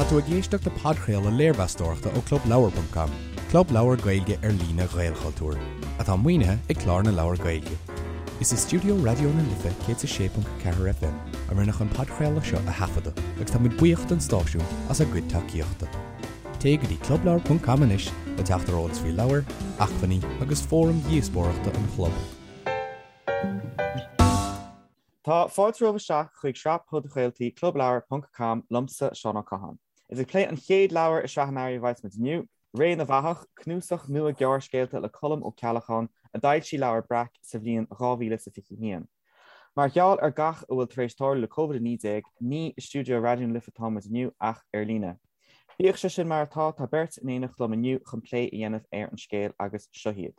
Tá tú ag éisteacht le podchraoladh léirmheastóireachta ó ClubLeabhar.com, club leabhar Gaeilge ar líne Ghaelchultúir, atá maoinithe ag Clár na Leabhar Gaeilge. Is i stiúideo Raidió na Life 106.4 FM a rinneadh an podchraoladh seo a thaifeadadh agus tá muid buíoch don stáisiún as a gcuid tacaíochta. Téigh go dtí clubleabhar.com anois le teacht ar eolas faoi leabhair, acmhainní agus fóraim dhíospóireachta an chlub. Tá fáilte romhaibh isteach chuig sraith podchraoltaí Clubleabhar ponc com liomsa, Seán Ó Catháin. Is ag plé an chéad leabhar i sraith an earraigh a bheas muid inniu, Ré na bhFathach, cnuasach nua gearrscéalta le Colm Ó Ceallacháin a d'fhoilsigh Leabhar Breac sa bhliain 2021. Mar gheall ar gach a bhfuil tar éis tarlú le Covid-19, ní i stiúideo Raidió na Life atá muid inniu ach ar líne. Bíodh sé sin mar atá, tá beirt in éineacht liom inniu chun plé a dhéanamh ar an scéal agus seo iad.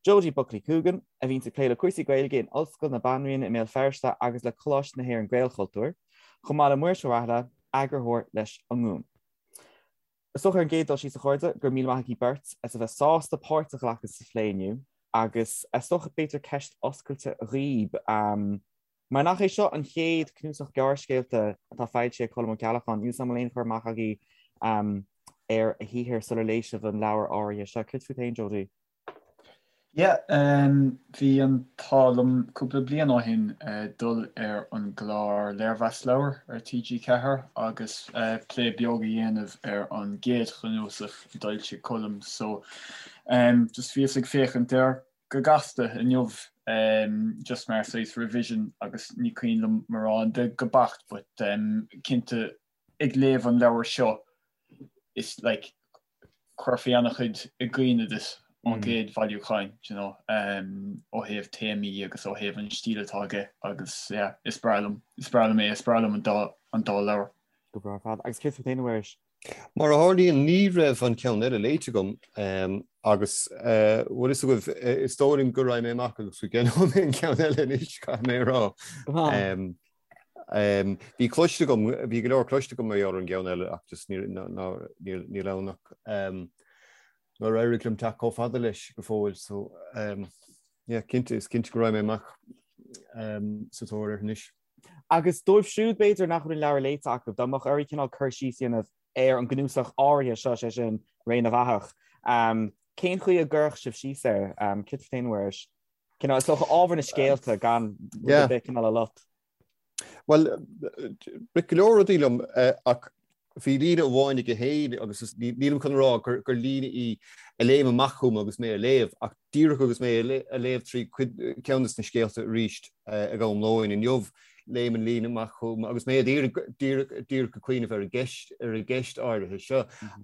Jodie Buckley Coogan, a bhíonns ag plé le cúrsaí Gaeilge in Ollscoil na Banríona i mBéal Feirste agus le Coláiste na hÉireann Gaelchultúr, chomh maith le Muiris Ó Rathaille, eagarthóir leis An Ngúm. Is dócha ar an gcéad dul síos a chairde, go raibh míle maith agaibh beirt as a bheith sásta páirt a ghlacadh sa phlé inniu agus is dócha b'fhéidir ceist oscailte dhaoib, mar nach é seo an chéad cnuasach gearrscéalta atá foilsithe ag Colm Ó Ceallacháin, níl 's agam an bhfuil aon chur amach agaibh ar a shaothar sular léigh sibh an leabhar áirithe seo. Céard fút féin, Jodie? Yeah, bhí an t-ádh liom cúpla bliain ó shin dul ar an gclár Léirmheas Leabhar ar TG4 agus plé beag a dhéanamh ar an gcéad chnuasach a d'fhoilsigh Colm so just bhíos ag féachaint air go gasta inniu just mar saghas revision agus ní cuimhin liom mórán de go beacht but cinnte ag léamh an leabhair seo is like chuirfí an-chuid i gcuimhne duit ón gcéad bhailiúcháin, do you know, ó thaobh téamaí agus ó thaobh an stíl atá aige agus yeah, is breá liom, is breá liom é, is breá liom an dá, an dá leabhar. Go breá ar fad. Agus céard fút féin, a Mhuiris? Mar a tharlaíonn, ní raibh an ceann eile léite agam agus bhfuil fhios agaibh, is dóigh liom go raghaidh mé amach agus go gceannóidh mé an ceann eile anois, caithfidh mé a rá. Bhí cloiste agam, bhí go leor cloiste agam mar gheall ar an gceann eile ach just níl níl ann ach nár éirigh liom teacht chomh fada leis go fóill so yeah cinnte, is cinnte go raghaidh mé amach sa tóir air anois. Agus dóibh siúd b'fhéidir nach bhfuil an leabhar léite acu, dá mbeadh oraibh cineál cur síos a dhéanamh ar an gcnuasach áirithe seo, sé sin Ré na bhFathach, cén chaoi a gcuirfeadh sibh síos air? Céard fút féin, a Mhuiris? Cineál, is dócha ábhar na scéalta gan rud ar bith cineál a lot. Bhuel, rith go leor rudaí liom ach bhí líne amháin aige féin agus nílim chun a rá gur líne í a léim amach chugam agus mé a léamh ach díreach agus mé a léamh trí cuid ceann de na scéalta arís ag am lóin inniu, léim an líne amach chugam agus mé díreach díreach ag cuimhneamh ar an gceist ar an gceist áirithe seo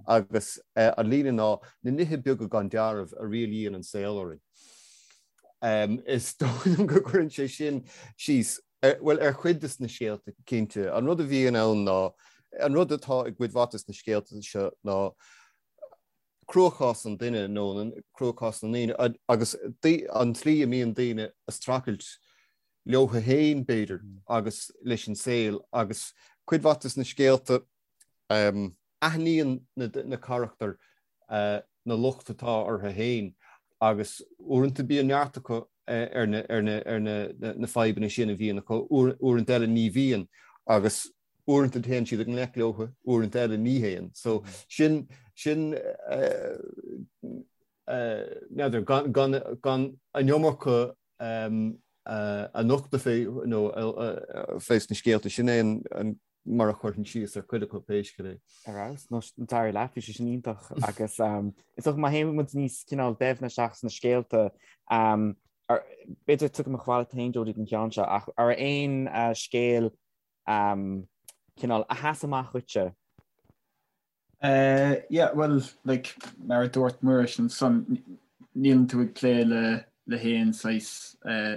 agus an líne ná na nithe beaga gan dealramh a rialaíonn an saol orainn. Is dóigh liom go gcuireann sé sin síos, bhuel, ar chuid de na scéalta, cinnte. An rud a bhíonn ann ná, an rud atá i gcuid mhaith de na scéalta seo ná cruachás an duine nó cruachás na ndaoine agus an tslí a mbíonn daoine ag streachailt leo féin, b'fhéidir, agus leis an saol agus cuid mhaith de na scéalta, Aithníonn na carachtair na locht atá orthu féin agus uaireanta bíonn neart acu ar na fadhbanna sin a bhíonn acu, uaireanta eile ní bhíonn agus uaireanta téann siad i ngleic leo, uaireanta eile ní théann. So sin, sin n'fheadar, gan an iomarca a nochtadh fé nó fé sna scéalta, sin é an mar a chuirfinn síos ar chuid acu pé scéal é. Ar fheabhas, nó d'éirigh leat, bhí sé sin iontach agus is dócha má théann muid níos cineál doimhne isteach sna scéalta, b'fhéidir tiocfaidh mé chomh fada leat féin Jodie don cheann seo ach an raibh aon scéal cineál a sheas amach dhuitse? Yeah, well, like, mar a dúirt Muiris ansan, níleann tú ag plé le le haon saghas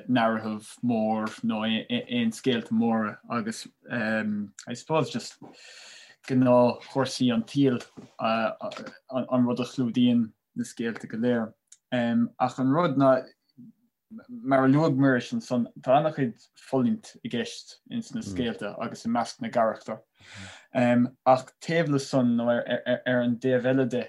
narrative mór nó aon scéalta móra agus I suppose just gnáthchúrsaí an tsaoil an rud a chlúdaíonn na scéalta go léir. Ach an rud ná Mar a luaigh Muiris ansan, tá an-chuid fulaingt i gceist ins na scéalta agus i measc na gcarachtar. Ach taobh le san, nó ar an dtaobh eile de,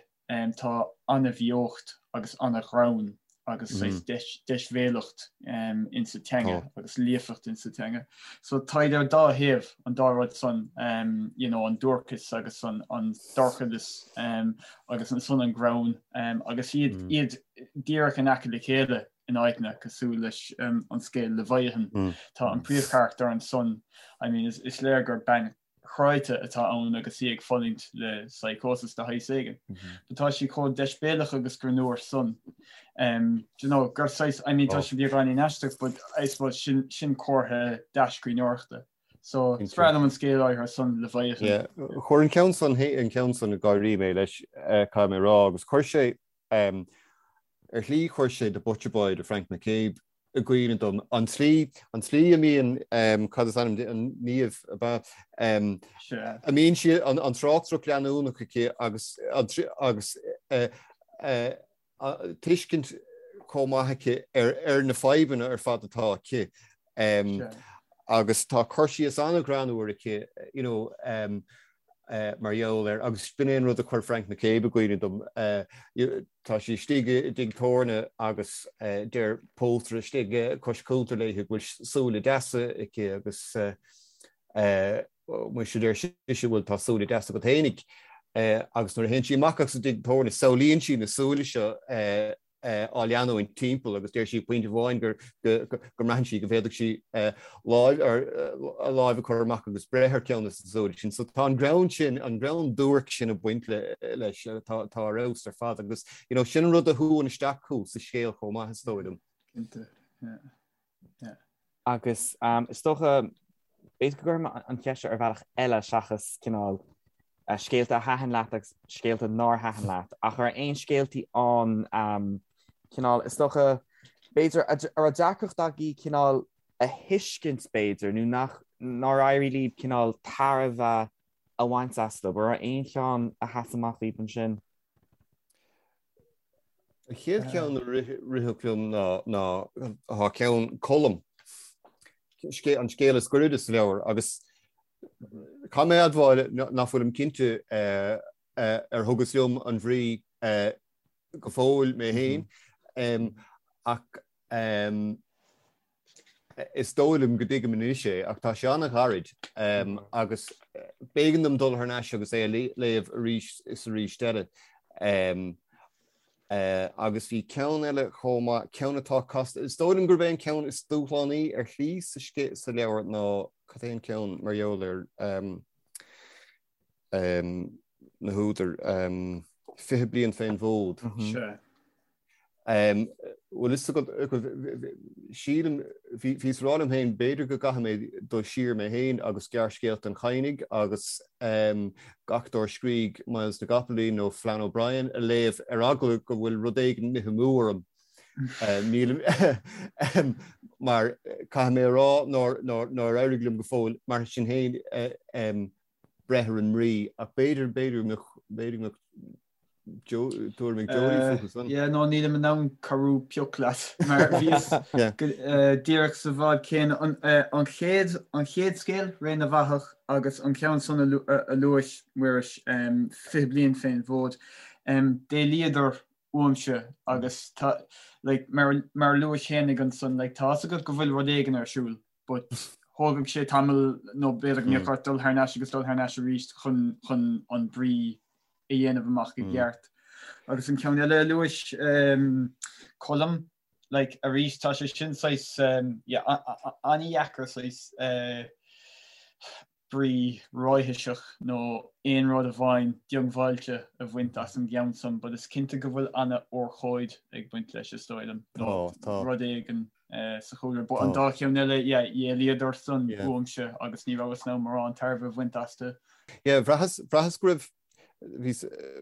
tá an-bheocht agus an-ghreann. agus saghas deisbhéalacht insa teanga agus líofacht insa teanga. So táid ar dá thaobh an dá rud san, you know, an duairceas agus an dorchadas agus ansan an greann agus iad iad díreach in aice le chéile in áiteanna cosúil leis an scéal Leviathan. Tá an príomhcharachtar ansan, I mean, is léir gur bean chráite atá ann agus í ag fulaingt le psychosis de shaghas éigin. But tá sí chomh deisbhéalach agus greannmhar san. Um, do you know, gur saghas, I mean, tá sé beagáinín aisteach, but I suppose sin, sin comhartha dea-scríbhneoireachta. So, is breá liom an scéal áirithe san, Leviathan. Yeah. Chuir an ceann san, an ceann san ag gáirí mé leis, eh, caithfidh mé a rá, agus chuir sé, um, ar shlí chuir sé The Butcher Boy de Frank McCabe i gcuimhne dom. An tslí, an tslí a mbíonn, cad is ainm di, an Niamh, ab ea? A mbíonn sí, an tráchtaireacht leanúnach aici agus, agus tuiscint chomh maith aici ar, ar na fadhbanna ar fad atá aici. Agus tá cur síos an-ghreannmhar aici, you know, mar gheall air, agus b'in é an rud a chuir Frank McCabe i gcuimhne dom, tá sí istigh i dtigh tábhairne agus deir pótaire istigh cois cuntair léi go bhfuil súile deasa aici agus muise deir sise bhuel tá súile deasa agat fhéinig agus nuair a théann sí amach as an dtigh tábhairne samhlaíonn sí na súile seo á leanúint timpeall agus deir sí pointe amháin go mbraitheann sí go bhféadfadh sí lámh a láimh a chur amach agus breith ar cheann de na súile sin. So tá an greann sin, an greann duairc sin ag baint leis, tá ar fheabhas ar fad agus you know, sin an rud a shúann isteach thú sa scéal chomh maith is dóigh liom. Cinnte, yeah. Yeah. Agus is dócha, b'fhéidir go gcuirfidh mé an cheist seo ar bhealach eile seachas cineál scéalta a thaitin leat agus scéalta nár thaitin leat, ach an raibh aon scéaltaí ann cineál, is dócha, b'fhéidir, a raibh deacracht agaibh cineál a thuiscint b'fhéidir, nó nach, nár éirigh libh cineál tairbhe a bhaint astu. An raibh aon cheann a sheas amach daoibh ansin? An chéad cheann a rithfeadh liom ná tá ceann Colm, an scéal is gairide sa leabhar, agus caithfidh mé a admháil nach bhfuilim cinnte ar thugas liom an bhrí go fóill mé féin, ach Is dóigh liom go dtuigim anois é, ach tá sé an-ghairid agus b'éigean dom dul thar n-ais agus é a léamh arís is arís eile. Agus bhí ceann eile chomh maith, ceann atá casta. Is dóigh liom gurb é an ceann is dúshlánaí ar shlí sa leabhar ná, cad é an ceann mar gheall ar na húdair, 20 Bliain fén bhFód. Sea. Bhfuil fhios agat, sílim, bhíos ag rá liom féin, b'fhéidir go gcaithfidh mé dul siar mé féin agus gearrscéalta an Chadhnaigh agus gach dár scrígh Myles na gCopaleen nó Flann O'Brien a léamh ar eagla go bhfuil rud éigin imithe amú orm. Nílim, mar caithfidh mé a rá nár éirigh liom go fóill, mar sin féin, breith ar an mbrí ach b'fhéidir, b'fhéidir go mbeadh, b'fhéidir go mbeadh tuairim ag Jody fúthu san. Yeah, no, nílim in ann cabhrú pioc leat mar bhíos díreach sa bhád céanna. An chéad, an chéad scéal, Ré na bhFathach, agus an ceann san a luaigh Muiris, 20 Bliain fén bhFód, d'éalaíodar uaimse agus tá, like, mar, mar a luais fhéinig ansan, like, tá fhios agat go bhfuil rud éigin ar siúl, but thógfadh sé tamall nó b'fhéidir go mbeadh ort dul thar n-ais agus dul thar n-ais arís chun, chun an brí a dhéanamh amach i gceart. Agus an ceann eile a luais, Colm, like, arís tá sé sin saghas, yeah, an-dheacair saghas brí ráitheach nó aon rud amháin diongbháilte a bhaint as an gceann san, but is cinnte go bhfuil an-urchóid ag baint leis is dóigh liom, nó rud éigin sa chúlra. But an dá cheann eile, yeah, d'éalaíodar san uaimse agus ní rabhas in ann mórán tairbhe a bhaint astu. Yeah, bhraitheas, bhraitheas go raibh, bhí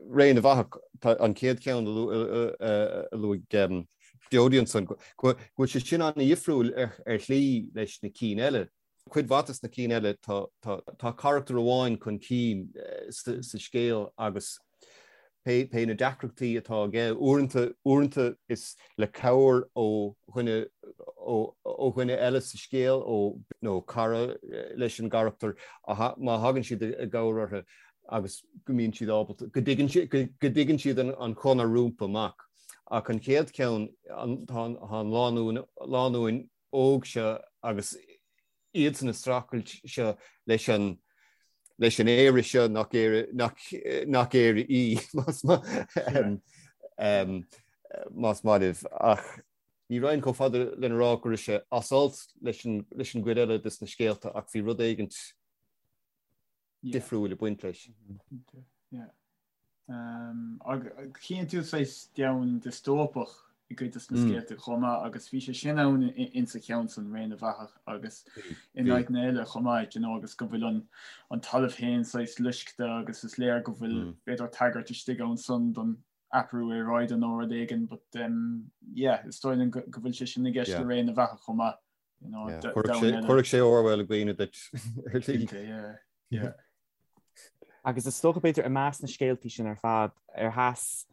Ré na bhFathach, tá an chéad cheann a luaigh Jody ansan, go bhfuil sé sin an-dhifriúil ar shlí leis na cinn eile. Cuid mhaith des na cinn eile tá carachtar amháin chun cinn sa scéal agus pé na deacrachtaí atá aige, uaireanta, uaireanta is le cabhair ó dhuine, ó dhuine eile sa scéal, ó, nó cara leis an gcarachtar, má thagann siad i gcabhair orthu agus go mbíonn siad ábalta, go dtuigeann, go dtuigeann siad an chonair rompu amach. Ach an chéad cheann, tá an lánúin, lánúin óg seo agus iadsan ag streachailt seo leis an leis an Éire seo nach Éire nach nach Éire í más más maith libh. Ach ní raghainn chomh fada lena rá go raibh sé as alt leis an leis an gcuid eile des na scéalta ach bhí rud éigint difriúil ag baint leis. Yeah. Chíonn tú saghas domhan diostóipeach i gcuid de na scéalta chomh maith agus bhí sé sin ann insa cheann san, Ré na bhFathach agus in áiteanna eile chomh maith, you know, agus go bhfuil an an talamh féin saghas loiscthe agus is léir go bhfuil b'fhéidir tagairt istigh ann san don athrú aeráide nó rud éigin but um, yeah, is dóigh liom go bhfuil sé sin i gceist le Ré na bhFathach chomh maith. You know, Chuirfeadh sé Orwell i gcuimhne duit ar shlí. Yeah. Agus is dócha b'fhéidir i measc na scéaltaí sin ar fad, ar sheas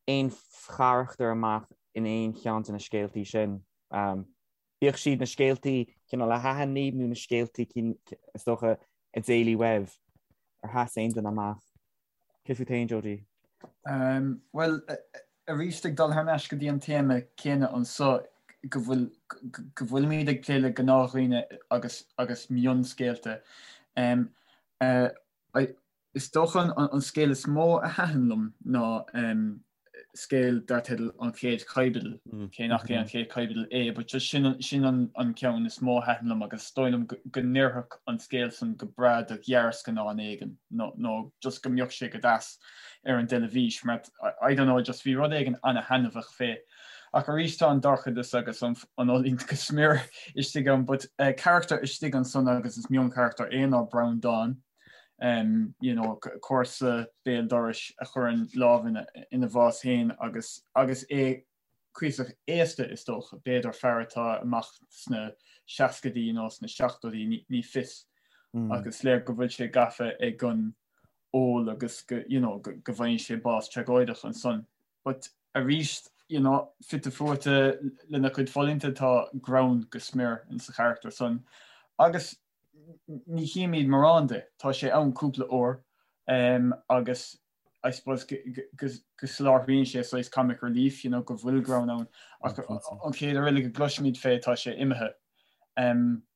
aon charachtar amach in aon cheann de na scéaltaí sin? Bíodh siad na scéaltaí cineál a thaitin libh nó na scéaltaí is dócha a d'éalaigh uaibh, ar sheas aon duine amach? Cé fút féin, Jody? Bhuel, arís ag dul thar n-ais go dtí an téama céanna anso, go bhfuil, go bhfuilimid ag plé le gnáthdhaoine agus, agus mionscéalta. Is dócha an scéal is mó a thaitin liom ná scéal dar teideal An Chéad Chaibidil, cé nach é an chéad chaibidil é, but just sin sin an ceann is mó a thaitin liom agus is dóigh liom go n-oirfeadh an scéal san go breá do ghearrscannán éigin nó nó just go mbeadh sé go deas ar an dteilifís mar I don't know just bhí rud éigin ana-thaitneamhach fé. Ach arís tá an dorchadas agus an an fhulaingt go smior istigh ann but carachtar istigh ansan agus is mioncharachtar é ná Breandán. you know, comharsa béal dorais a chuireann lámh ina, ina bhás féin agus, agus é cuíosach aosta is dócha, b'fhéidir fear atá amach sna seascaidí nó sna seachtóidí, ní, ní fios. Mm. Agus léir go bhfuil sé gafa ag an ól agus go, you know, go, go bhfaigheann sé bás tragóideach ansan. But arís, you know, fite fuaite lena chuid fulaingte tá greann go smior insa charachtar san. Agus ní chímid mórán de, tá sé ann cúpla uair agus I suppose go soláthraíonn sé saghas comic relief, you know, go bhfuil greann ann ach an chéad uair eile go gcloisimid fé tá sé imithe.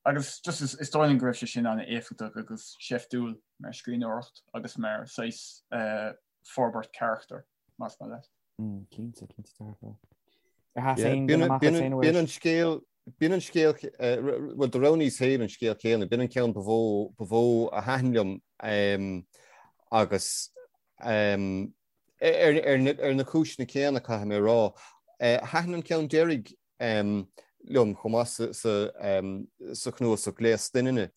Agus just is dóigh liom go raibh sé sin an-éifeachtach agus seiftiúil mar scríbhneoireacht agus mar saghas forbairt carachtair, más maith leat. Cinnte, cinnte dearfa. Ar sheas aon duine amach as aon uair? B'in an scéal, b'in an scéal, bhuel do roghnaíos féin an scéal céanna, b'in an ceann ba mhó, ba mhó a thaitin liom agus ar, ar, ar na cúiseanna céanna caithfidh mé a rá. Thaitin an ceann deiridh liom chomh maith sa, sa, sa chnuasach Gléas Doininne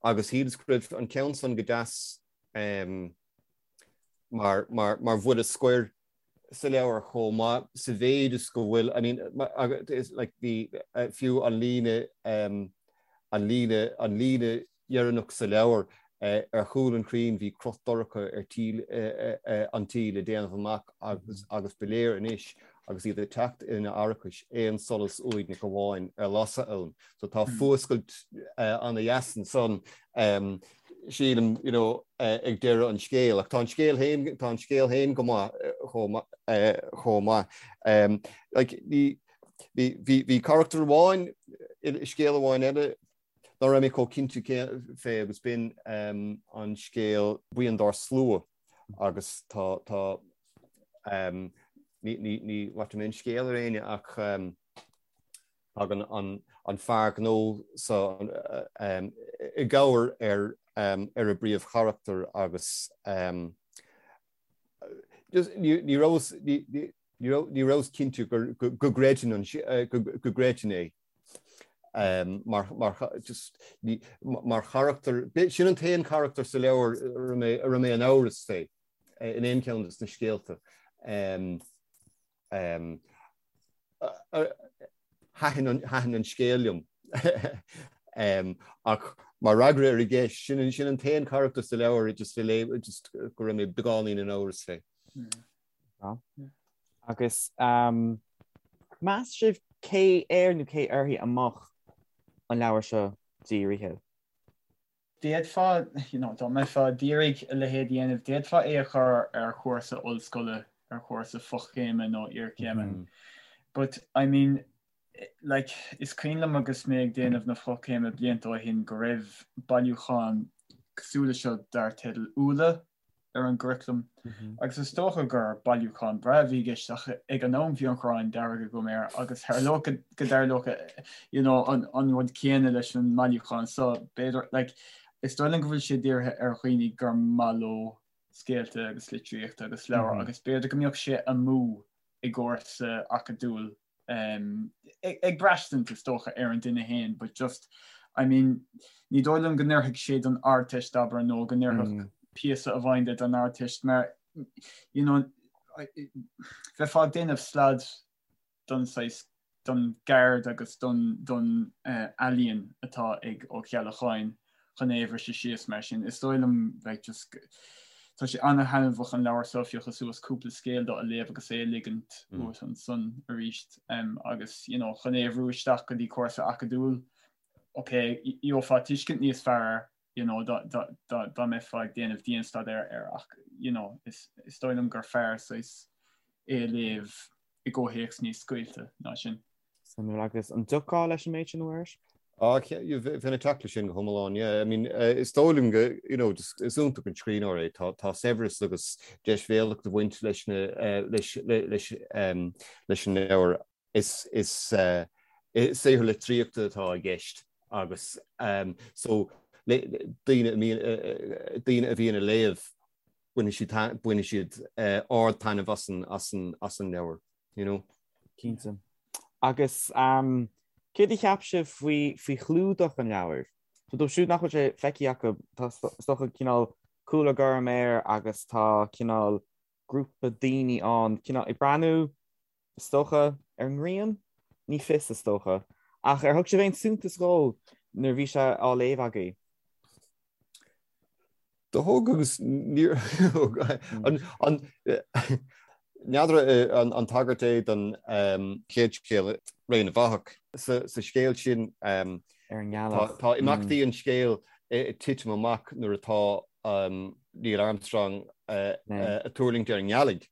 agus shíleas go raibh an ceann san go deas mar, mar, mar bhuille scoir sa leabhar chomh maith sa mhéid is go bhfuil, I mean, like bhí fiú an líne, an líne, an líne dheireanach sa leabhar, ar chúl an chrainn bhí cruth dorcha ar tí an tí le déanamh amach agus agus ba léir anois agus iad ag teacht ina arachais aon solas uaigneach amháin ar lasadh ann. So tá fuascailt ana-dheas ansan sílim, you know, ag deireadh an scéil. Ach tá an scéal féin, tá an scéal féin go maith chomh chomh maith. Like, bhí, bhí, bhí carachtar amháin i scéal amháin eile nach raibh mé chomh cinnte fé agus b'in an scéal Buíon dár Slua agus tá, tá, ní, ní, ní bhaistfidh mé an scéal ar éinne ach Tagann an fear gnó seo i gcabhair ar ar an bpríomhcharachtar agus ní rabhas ní rabhas cinnte go gcreidfinn go gcreidfinn é mar mar charachtar. Sin an t-aon charachtar sa leabhar a raibh mé in amhras fé in aon cheann de na scéalta. Thaitin an scéal liom. Ach mar fhreagra ar an gceist, sin sin an t-aon charachtar sa leabhar just a léigh just go raibh mé beagáinín in amhras fé. Agus meas sibh cé air nó cé uirthi a mbeadh an leabhar seo dírithe? D'fhéadfá, you know, dá mbeifeá d'iarraidh a leithéid a dhéanamh, d'fhéadfá é a chur ar chúrsa ollscoile. ar chúrsa fochéime nó iarchéime. But I mean like is cuimhin liom agus mé ag déanamh na fochéime blianta ó shin go raibh bailiúchán cosúil leis seo dar teideal Úlla ar an gcuraclam agus is dócha gur bailiúchán breá a bhí i gceist ach ag an am bhí an ghráin dearg agam air agus tharlódh go dtarlódh you know, an, an rud céanna leis an mbailiúchán so b'fhéidir like, is dóigh liom go bhfuil sé dírithe ar dhaoine gur maith leo scéalta agus litríocht agus leabhair agus b'fhéidir go mbeadh sé amú i gcúrsa acadúil ag braistint is dócha ar an duine féin but just I mean ní dóigh liom go n-oirfeadh sé don Ardteist abair nó go n-oirfeadh mm. píosa amháin de don Ardteist mar you know bheifeá ag déanamh slad don saghas don gceird agus don don uh, ealaíon atá ag Ó Ceallacháin chun é a bhriseadh síos mar sin. Is dóigh liom like just tá sé an-thaitneamhach an leabhar seo a phiocadh suas cúpla scéal dó a léamh agus é a ligint uait ansan arís agus you know chun é a bhrú isteach go dtí cúrsa acadúil ok gheofá tuiscint níos fearr air you know dá dá dá dá mbeifeá ag déanamh dianstaidéar air ach you know is is dóigh liom gur fearr saghas é a léamh i gcomhthéacs níos scaoilte ná sin. Suimiúil. Agus an dtiocfá leis an méid sin, a Mhuiris? Ah, bheinn ag teacht leis sin go hiomlán, yeah. I mean, is dóigh liom go, you know, just is iontach an scríbhneoir é. Tá, tá saibhreas agus deisbhéalacht ag baint leis na, leis, leis, leis an leabhar. Is, is saothar litríochta atá i gceist agus so daoine a mbíonn, daoine a bhíonn ag léamh, bainfidh siad, bainfidh siad ard-taitneamh as an, as an, as an leabhar, you know. Cinnte. Agus céard a cheap sibh faoi, faoi chlúdach an leabhair? So dóibh siúd nach bhfuil sé feicthe acu, tá is dócha cineál cúlra gorm air agus tá cineál grúpa daoine ann, cineál ag breathnú, is dócha, ar an ngrian? Ní fios, is dócha. Ach ar thug sibh aon suntas dhó nuair a bhí sé á léamh agaibh? Do thug agus níor thug. An n'fheadar an tagairt é don chéad scéal, Ré na bhFathach. Sa scéal sin tá imeachtaí an scéil ag titim amach nuair atá Neil Armstrong ag tuirlingt ar an ngealaigh.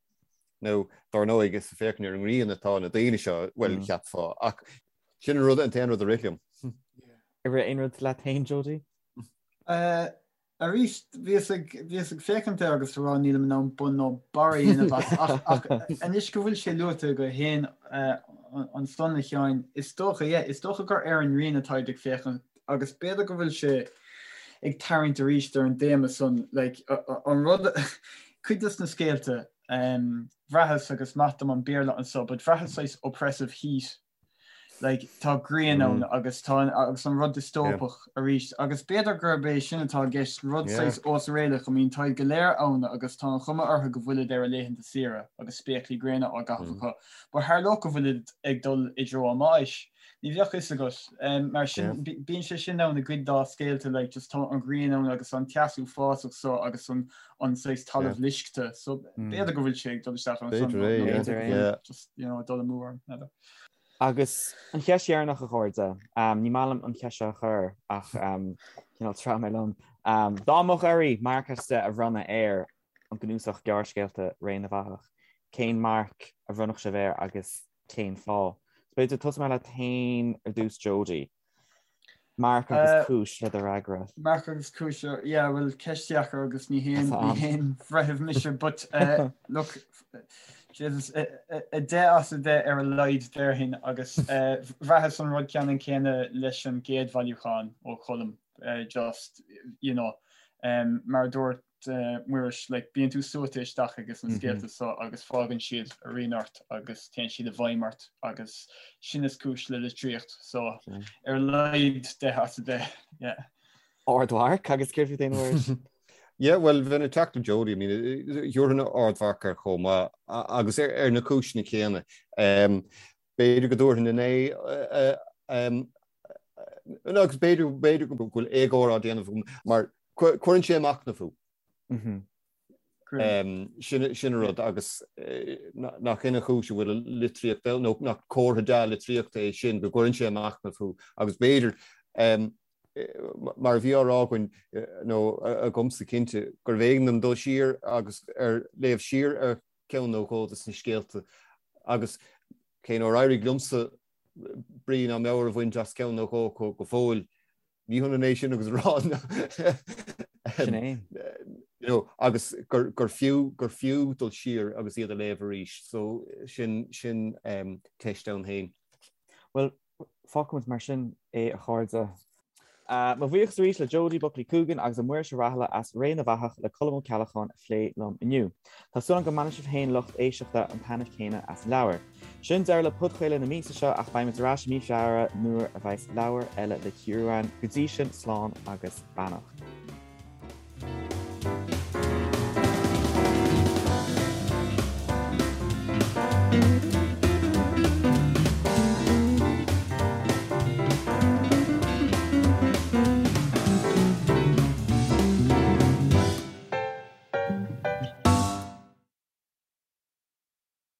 Nó dar ndóigh is ag féachaint ar an ngrian atá na daoine seo, bhuel cheapfá, ach sin an rud, an t-aon rud a rith liom. Ar rith aon rud leat féin, Jody? Arís, bhíos ag, bhíos ag féachaint air agus ag rá nílim in ann bun ná barr a dhéanamh as, ach, ach anois go bhfuil sé luaite agat féin ansan, a Sheáin, is dócha, yeah, is dócha gur ar an ngrian atáid ag féachaint agus b'fhéidir go bhfuil sé ag tarraingt arís ar an dtéama san, like, an rud, cuid dos na scéalta, bhraitheas, agus maith dom an Béarla anso, but bhraitheas saghas oppressive heat Like, tá grian ann agus tá agus an rud diostóipeach arís agus b'fhéidir gurb é sin atá i gceist, rud saghas osréalach, I mean táid go léir ann agus tá an chuma orthu go bhfuilid ar a laethanta saoire agus spéaclaí gréine á gcaitheamh acu, but tharlódh go bhfuilid ag dul i dtreo a mbáis. Ní bheadh fhios agat. Mar sin, bíonn sé sin ann i gcuid dá scéalta, like, just tá an ghrian ann agus an teas uafásach so agus an an saghas talamh loiscthe, so b'fhéidir go bhfuil sé ag dul isteach ansan, nó b'fhéidir go bhfuil just, you know, ag dul amú orm, n'fheadar. Agus an cheist dheireanach, a chairde, ní maith liom an cheist seo a chur ach cineál treabh mé liom. Dá mbeadh oraibh marc as 10 a bhronnadh ar an gcnuasach gearrscéalta Ré na bhFathach, cén marc a bhronnfadh sibh air agus cén fáth? So b'fhéidir tosóidh mé leat féin ar dtús Jody. Marc agus cúis le do fhreagra. Marc agus cúis, yeah, bhuel ceist dheacair agus ní haon ní haon bhreitheamh mise but look, Jesus, 10 as 10 ar a laghad déarfainn agus bhraitheas an rud ceannann céanna leis an gcéad bhailiúchán ó Cholm just, you know, mar a dúirt Muiris, like, bíonn tú suaite isteach ages na scéalta so agus fágann siad a rian ort agus téann siad i bhfeidhm ort agus sin is cúis le litríocht so ar a laghad 10 as 10, yeah. Ardmharc agus céard fút féin a Mhuiris? Yeah, well, bheinn ag teacht le Jody, I mean, thabharfainn ardmharc air chomh maith agus ar na cúiseanna céanna. B'fhéidir go dtabharfainn 9 agus b'fhéidir b'fhéidir go bhfuil éagóir á déanamh agam mar cuireann sé ag machnamh thú. Sin sin an rud agus nach in an chúis a bhfuil litríocht nó nach comhartha dea-litríochta é sin go gcuireann sé ag machnamh thú agus b'fhéidir mar a bhí á rá againn nó agamsa cinnte gurbh éigean dom dul siar agus ar léamh siar ar. ceann nó dhó de na scéalta agus cé nár éirigh liomsa brí ná meabhair a bhaint as ceann nó dhó acu go fóill, ní hionann é sin agus a rá Sin é. you know, agus gur, gur fiú, gur fiú dul siar agus iad a léamh arís. So sin, sin um, teist ann féin. Well, fágfaimid mar sin é a chairde. Mo bhuíochas arís le Jodie Buckley Coogan agus le Muiris Ó Rathaille as Ré na bhFathach le Colm Ó Ceallacháin a phlé liom inniu. Tá súil agam go mbainfidh sibh féin lucht éisteachta an taitneamh céanna as an leabhar. Sin deireadh le podchraoladh na míosa seo ach beidh muid ar ais i mí Feabhra nuair a bheas leabhar eile le cíoradh againn. Go dtí sin, slán agus beannacht.